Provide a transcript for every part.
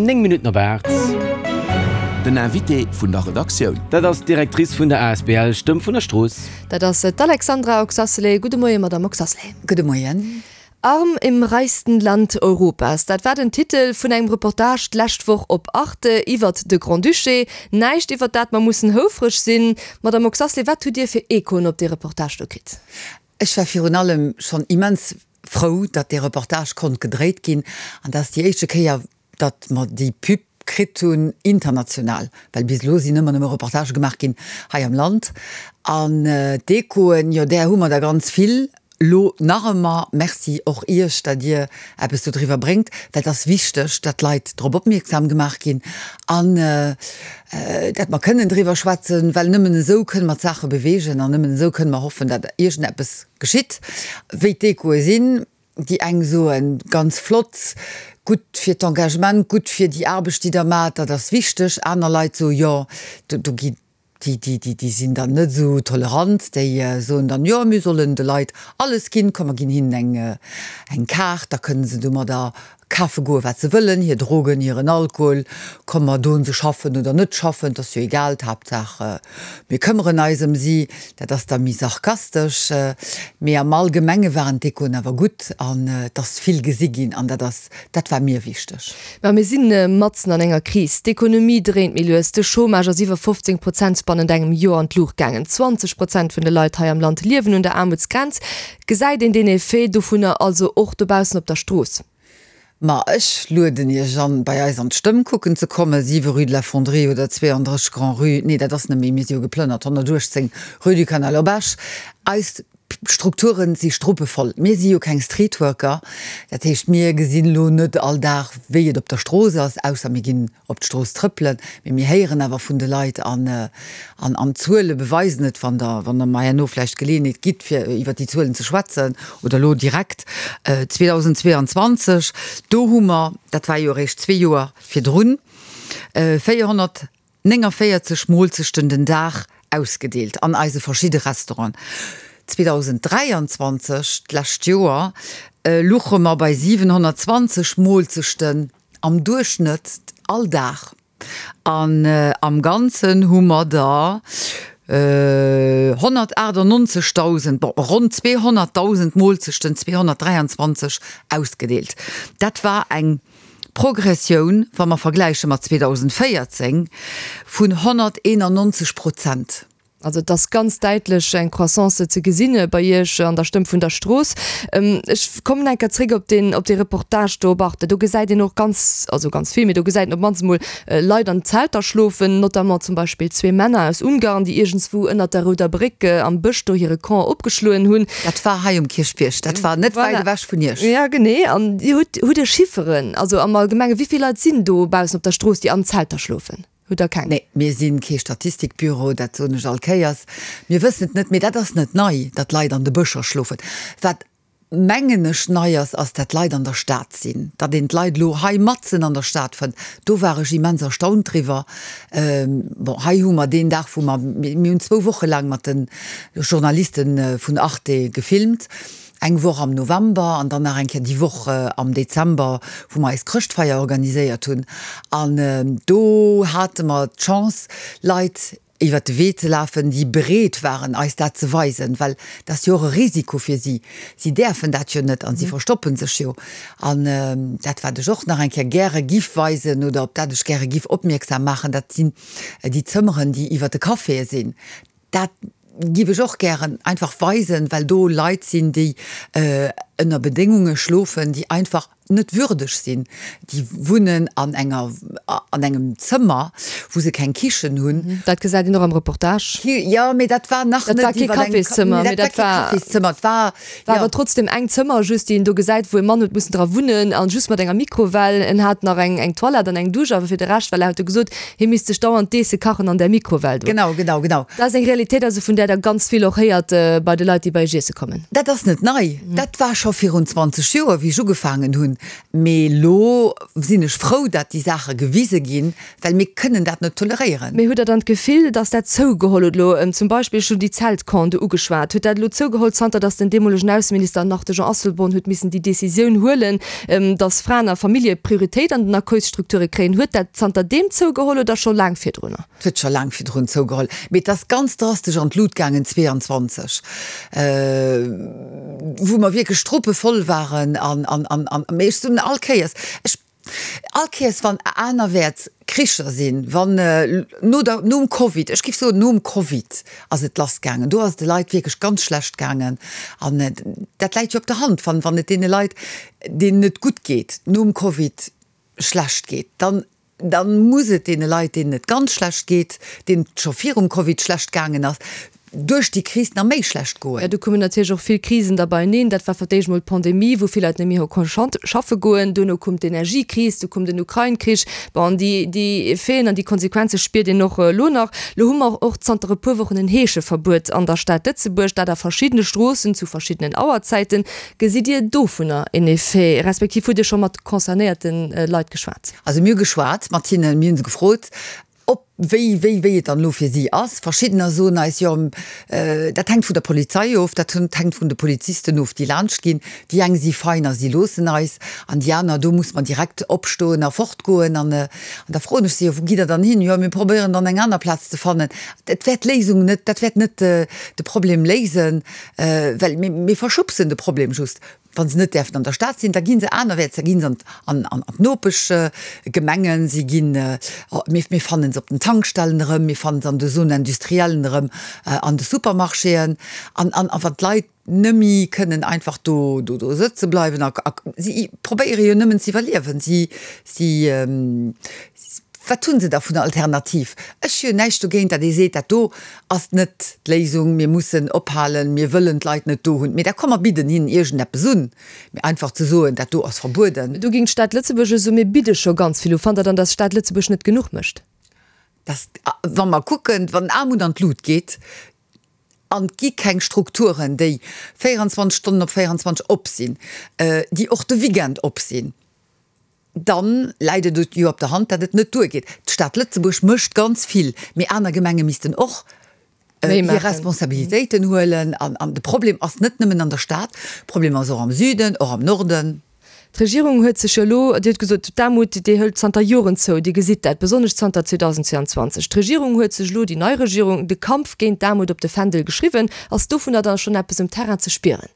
9 Minutten op 8. Den Invité vun der Redaktioun. Dat ass d'Directrice vun der asbl Stëmm vun der Strooss. Dat ass d'Alexandra Oxacelay. Gudde Moien, Madamm Oxacelay. Gudde Moien. Arm im reichsten Land Europas, dat war den Titel vun engem Reportage d'lescht Woch op Arte iwwert de Grand-Duché. Näischt iwwert dat mer mussen houfreg sinn. Madamm Oxacelay, wat hutt Dir fir Echoen op dee Reportage do kritt? Ech war virun allem schonn immens frou, datt dee Reportage konnt gedréit ginn an dat ass déi éischte Kéier, datt mer déi Pub kritt hunn international, well bis elo sinn ëmmer nëmme Reportagë gemaach ginn hei am Land. An d'Echoen, jo där hu mer der ganz vill elo nach ëmmer. Merci och Iech, datt Dir eppes do driwwer bréngt, well et ass wichteg, datt d'Leit drop opmierksam gemaach ginn an datt mer kënnen driwwer schwätzen, well nëmmen esou kënne mer d'Saache beweegen an nëmmen esou kënne mer hoffen, datt iergendeppes geschitt. Wéi d'Echoe sinn, Déi eng soen, ganz flott, gutt fir d'Engagement, gutt fir déi Aarbecht, déi Der maacht, dat ass wichteg. Aner Leit soen, jo, do gi déi, déi, déi sinn dann net esou tolerant, déi soen dann, jo, mir sollen de Leit alles ginn, komm mer ginn hinnen eng, eng Kaart, da kënne se domadder kafe goen, wat se wëllen, hir Drogen, hiren Alkohol, komm mer doen se schaffen oder net schaffen, 't ass jo egal, d'Haaptsaach mir këmmeren eis ëm si. Dat ass da méi sarkastesch, mee am Allgemenge waren d'Echoen awer gutt an et ass vill gesi ginn an dat ass, dat war mir wichteg. Mä mir si matzen an enger Kris, d'Ekonomie dréint méi lues, de Chômage ass iwwer 15 Prozent bannent engem Joer an d'Luucht gaangen, 20 Prozent vun de Leit hei am Land liewen un der Aarmutsgrenz. Gesäit een deen Effet dovunner also och dobaussen op der Strooss? Ma ech lueden Iech an, bei eis an d'Stëmm kucken ze kommen, 7 rue de la Fonderie oder 32 Grand-Rue, nee, dat ass net méi, mir si jo geplënnert, 118 rue du Canal op Esch. Eis Strukture si struppevoll. Mir si jo keng Streetworker, dat heescht, mir gesinn elo net all Dag, wéi et op der Strooss ass, ausser mir ginn op d'Strooss trëppelen, mee mir héieren awer vun de Leit an an d'Zuele beweisen et, wann Der wann Der mer herno vläicht d'Geleeënheet gitt, fir iwwert déi Zuelen ze schwätzen oder elo direkt, 2022, do hu mer, dat war jo eréischt zwee Joer virdrun, 449 Moolzechten den Dag ausgedeelt an eise verschidde Restauranten. 2023, d'lescht Joer, luche mer bei 720 Moolzechten Am Duerchschnëtt all Dag. An am Ganzen hu mer der 198.000, bon, ronn 200.000 Moolzechten 223 ausgedeelt. Dat war eng Progressioun, wa mer vergläiche mat 2014, vun 191 Prozent. Also et ass ganz däitlech eng Croissance ze gesinn bei Iech an der Stëmm vun der Strooss. Ech kommen eng Kéier zréck op deen, op dee Reportage do op Arte. Do gesäit een och ganz, also ganz vill, mee do gesäit een op d'mannst emol Leit an Zelter schlofen, notamment zum Beispill zwee Männer aus Ungarn, déi iergendswou ënnert der Rouder Bréck am Bësch do hire Camp opgeschloen hunn. Dat war hei um Kierchbierg, dat war net wäit ewech vun Iech. Ja, genee. An Dir hutt, hutt Dir Chifferen, also am Allgemengen, wéi vill Leit sinn do baussen op der Strooss, déi an Zelter schlofen? Hutt Der keng? Nee, mir si kee Statistikbüro, dat soen ech all Kéiers. Mir wëssen et net, mee dat ass net nei, datt Leit an de Bëscher schlofen. Wat, mengen ech, nei ass, ass, dat Leit an der Stad sinn, datt een d'Leit elo hei matzen an der Stad fënnt. Do war ech immens erstaunt driwwer. Bon, hei hu mer deen Dag, wou mer, mir hunn zwou Woche laang mat de Journaliste vun Arte gefilmt, Eng Woch am November an dann nach eng Kéier déi Woch am Dezember, wou mer eis Chrëschtfeier organiséiert hunn. An do hate mer d'Chance, Leit iwwert de Wee ze lafen, déi bereet waren, eis dat ze weisen, well dat ass jo och e Risiko fir si. Si däerfen dat jo net an si verstoppe sech jo. An dat, wat ech och nach eng Kéier gäre giff weisen oder op dat ech gäre giff opmierksam maachen, dat sinn déi Zëmmeren, déi iwwert de Caféë sinn. Dat giff ech och gären einfach weisen, well do Leit sinn, déi ënner Bedéngunge schlofen, déi einfach net würdeg sinn. Déi wunnen an enger, an engem Zëmmer, wou se keng Kichen hunn. Dat gesäit een och am Reportage. Jo, mee dat war nach net iwwer eng. Dat war kee Cafészëmmer, mee dat war. Dat war kee Cafészëmmer, et war. War awer trotzdem eng Zëmmer just, déi een do gesäit, wou e Mann huet mussen dra wunnen an just mat enger Mikrowell. En hat nach eng eng Toilette an eng Dusch, awer fir de Rescht, well er huet jo gesot, hie misst sech dauernd d'Eesse kachen an där Mikrowell do. Genau, genau, genau. Dat ass eng Realitéit also, vun där Der ganz vill och héiert bei de Leit, déi bei Iech iesse kommen. Dat ass net nei, dat war scho virun 20 Joer, wéi ech ugefaangen hunn. Mee elo sinn ech frou, dat déi Saache gewisen. gewise ginn, well mir kënnen dat net toleréieren. Mee hutt Der dann d'Gefill, datt dat zougeholl huet elo? Zum Beispill, ech hunn déi Zeltcampen do ugeschwat, huet dat elo zougeholl, zanter datt den deemolegen Ausseminister, nach de Jean Asselborn, huet missen déi Décisioun huelen, datt Fraen a Famillje Prioritéit an den Accueilsstrukture kréien? Huet dat zanter deem zougeholl oder scho laang virdrunner? Et huet scho laang virdrun zougeholl, mee et ass ganz drastesch an d'Lut gaangen 22, wou mer wierklech struppevoll waren an, an, an, an, mee ech soen all Kéiers, ech, all Kéiers wann anerwäerts Kricher sinn, wann no der, nom Covid, ech géif soen nom Covid ass et lassgaangen, do ass et de Leit wierklech ganz schlecht gaangen an dat läit jo op der Hand, wann, wann et deene Leit, deenen et gutt geet nom Covid schlecht geet, dann Da muss et deene Leit, deenen et ganz schlecht geet, deenen et scho virum Covid schlecht gaangen ass, duerch déi Kris nach méi schlecht goen. Jo, do koumen natierlech och vill Krisen da beieneen. Dat war fir d'éischt mol d'Pandemie, wou vill Leit net méi hu konnt schaffe goen. Duerno koum d'Energiekris, du koum den Ukrain-Krich. Bon, déi, déi Effeten an déi Konsequenze spiert een och elo nach. Elo hu mer och zanter e puer Wochen en Heescheverbuet an der Stad Lëtzebuerg, dat a verschiddene Stroossen zu verschiddenen Auerzäiten. Gesitt Dir dovunner en Effet, respektiv hutt Dir scho mat concernéierte Leit geschwat? Also mir hu geschwat mat hinnen, mir hu se gefrot, ob, wéi, wéi, wéi et dann elo fir si ass. Verschiddener soen eis, jo, dat hänkt vun der Polizei of, dat hänkt vun de Polizisten of, déi laanscht ginn. Déi eng si fein a si loossen eis, an déi aner, do muss mer direkt opstoen a fortgoen. An da froen ech se, jo, wou gitt Der dann hin? Jo, mir probéieren dann eng aner Plaz ze fannen. Dat wäert d'Léisung net, dat wäert net de Problem léisen, well mir verschubsen de Problem just. Wa se net däerfen an der Stad sinn, da gi se anerwäerts, da gi se an d'Nopeschgemengen, si ginn, mir fannen se op den Tankstellen erëm, mir fannen se an de Zones industriellen erëm, an de Supermarchéen. An wann d'Leit nëmme kënnen einfach do sëtze bleiwen a si probéiere jo nëmmen ze iwwerliewen, si, si, wat hu se da vun der Alternativ? Ech hu jo näischt dogéint, datt ee seet, dat do ass net d'Léisung, mir mussen ophalen, mir wëllen d'Leit net do hunn, mee da komm mer bidden hinnen iergendeppes un, mee einfach ze soen, dat do ass verbueden. Do géing d'Stad Lëtzebuerg jo soen, mir bidde scho ganz vill u. Fannt Der dann, datt d'Stad Lëtzebuerg net genuch mécht? Dass, wa mer kucken, wann Aarmut an d'Lut geet an et gi keng Strukturen, déi 24 Stonnen op 24 op sinn, déi och de Weekend op sinn, Dann läit et jo op der Hand, datt et net duergeet. D'Stad Lëtzebuerg mécht ganz vill, mee aner Gemenge missten och hir Responsabilitéiten huelen. An de Problem ass net nëmmen an der Stad, de Problem ass och am Süden, och am Norden. D'Regierung huet sech jo elo, Dir hutt gesot, d'Aarmut, déi hëlt zanter Joren zou, Dir gesitt dat, besonnesch zanter 2022. D'Regierung huet sech elo, déi nei Regierung, de Kampf géint d'Aarmut op de Fändel geschriwwen. Ass dovunner dann schonn eppes um Terrain ze spieren?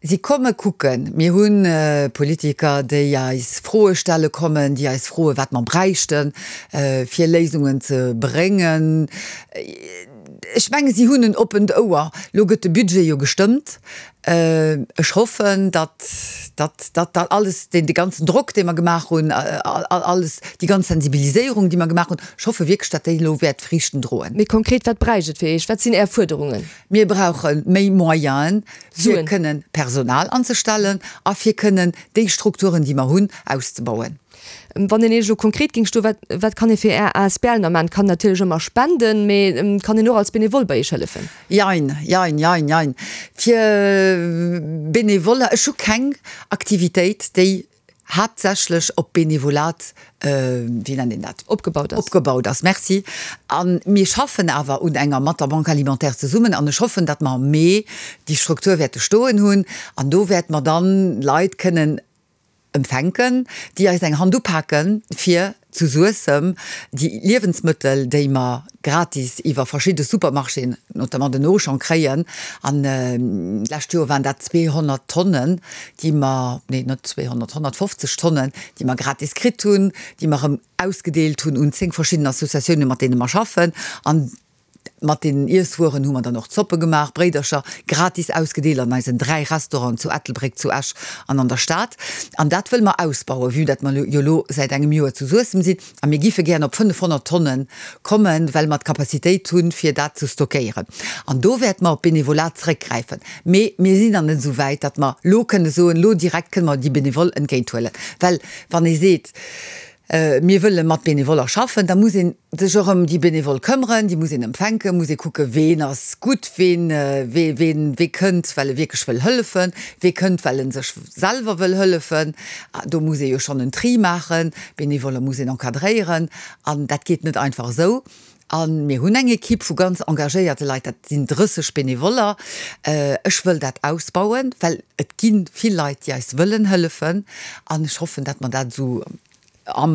Si komme kucken. Mir hu Politiker, déi eis Froe stelle kommen, déi eis froen, wat mer bräichten, fir Léisungen ze bréngen. Ech menge si hunn en oppent Ouer. Elo gëtt de Budget jo gestëmmt. Ech hoffen, datt datt dat alles, dee ganzen Drock, dee mer gemaach hunn, alles, déi ganz Sensibiliséierung, déi mer gemaach hunn, ech hoffe wierklech, datt déi elo wäert Friichten droen. Méi konkret, wat bräicht et fir Iech? Wat sinn Är Fuerderungen? Mir brauche méi Moyenen, fir kënnen Personal anzestellen a fir kënnen déi Strukturen, déi mer hunn, auszebauen. Wann een Iech elo konkret géing stoen, wat, wat kann ee fir Är asbl nach maachen? Kann natierlech ëmmer spenden, mee kann een och als Benevole bei Iech hëllefen? Jein, jein, jein, jein. Fir Benevoller, ech hu keng Aktivitéit, déi haaptsächlech op Benevolat, wéi nennt een dat? Opgebaut ass. Opgebaut ass, merci. A mir schaffen awer un enger mat der Banque alimentaire zesummen an ech hoffen, datt mer am Mee déi Struktur wäerte stoen hunn an do wäerte mer dann Leit kënnen empfänken, déi eis eng Hand upaken, fir zu Suessem déi Liewensmëttel, déi mer gratis iwwer verschidde Supermarchéen, notamment den Auchan, kréien, an d'lescht Joer waren dat 200 Tonnen, déi mer, nee net 200, 150 Tonnen, déi mer gratis kritt hunn, déi mer erëm ausgedeelt hunn un 10 verschidden Associatiounen, mat deene mer schaffen. An Mat deenen Iesswueren hu mer dann och Zoppe gemaach, Bréidercher gratis ausgedeelt an eisen 3 Restauranten zu Ettelbréck, zu Esch an an der Stad. An dat wëlle mer ausbauen, vue dat mer jo elo säit engem Joer zu Suessem sinn. A mir giffe gären op 500 Tonne kommen, well mer d'Capacitéit hunn, fir dat ze stockéieren. An do wäerte mer op d'Benevolat zeréckgräifen. Mee mir sinn nach net esou wäit, datt mer elo kënne soen, elo direkt kënne mer déi Benevole entgéinthuelen. Well wann ee seet. Mir wëlle mat Benevoller schaffen, da muss ee sech och ëm déi Benevole këmmeren, déi muss een empfänken, muss ee kucken, ween ass gutt, ween, wee, ween, wee kënnt, well e wierklech wëll hëllefen, wee kënnt, well en sech selwer wëll hëllefen. Do muss ee jo schonn en Tri maachen, Benevoller muss een encadréieren an dat geet net einfach esou. A mir hunn eng Ekipp vu ganz engagéierte Leit, dat sinn 30 Benevoller. Ech wëll dat ausbauen, well et gi vill Leit, déi eis wëllen hëllefen. An ech hoffen, datt mer dat esou am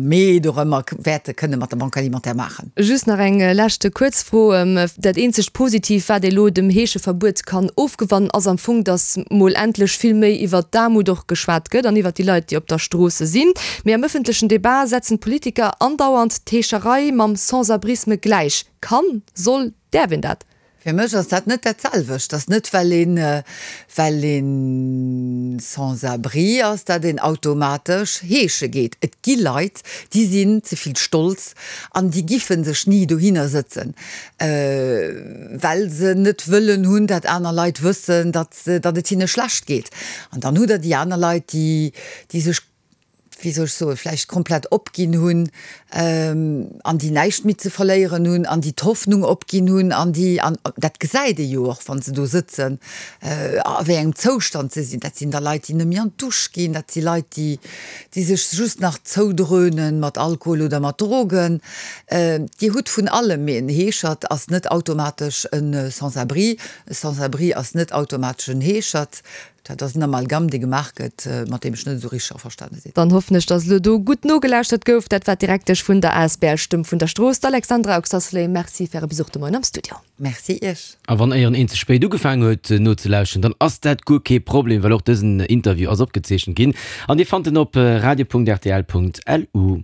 Mee dorëmmer wäerte kënne mat der Banque alimentaire maachen. Just nach eng leschte kuerz Fro. Dat eenzegt Positiivt, wat ee lo dem Heescheverbuet kann ofgewannen, ass am Fong, datt mol endlech vill méi iwwert d'Aarmut och geschwat gëtt an iwwert déi Leit, déi op der Strooss sinn. Mee am ëffentlechen Debat setzen d'Politiker andauernd d'Heescherei mam Sans-abrisme gläich. Kann, soll, däerf een dat? Fir mech ass dat net dat selwecht. Ass net well een, well een Sans-abri ass, dat een automatesch heesche geet. Et gi Leit, déi sinn ze vill stolz an déi giffen sech ni dohinner sëtzen, well se net wëllen hunn, dat aner Leit wëssen, datt, datt et hinne schlecht geet. An dann hutt Der déi aner Leit, déi, déi sech wéi soll ech soen, vläicht komplett opginn hunn an déi näischt méi ze verléieren hunn an déi d'Hoffnung opginn hunn an déi, an dat gesäit ee jo och, wa se do sëtzen, a wéi engem Zoustand se sinn. Dat sinn da Leit, déi net méi an d'Dusch ginn, dat si Leit, déi, déi sech just nach zoudröhnen mat Alkohol oder mat Drogen. Dir hutt vun allem, mee en Heeschert ass net automatesch e Sans-abri, e Sans-abri ass net automatesch en Heeschert. Dat ass en Amalgam, dee gemaach gëtt, mat deem ech net esou richteg averstane sinn. Dann hoffen ech, dass elo do gutt nogelauschtert gouf. Dat war d'Direktesch vun der asbl Stëmm vun der Strooss, d'Alexandra Oxacelay. Merci fir Äre Besuch de Moien am Studio. Merci Iech. A wann éieren een ze spéit ugefaangen huet nozelauschteren, dann ass dat guer kee Problem, well och dësen Interview ass opgezeechent ginn an dir fannt en op radio.rtl.lu.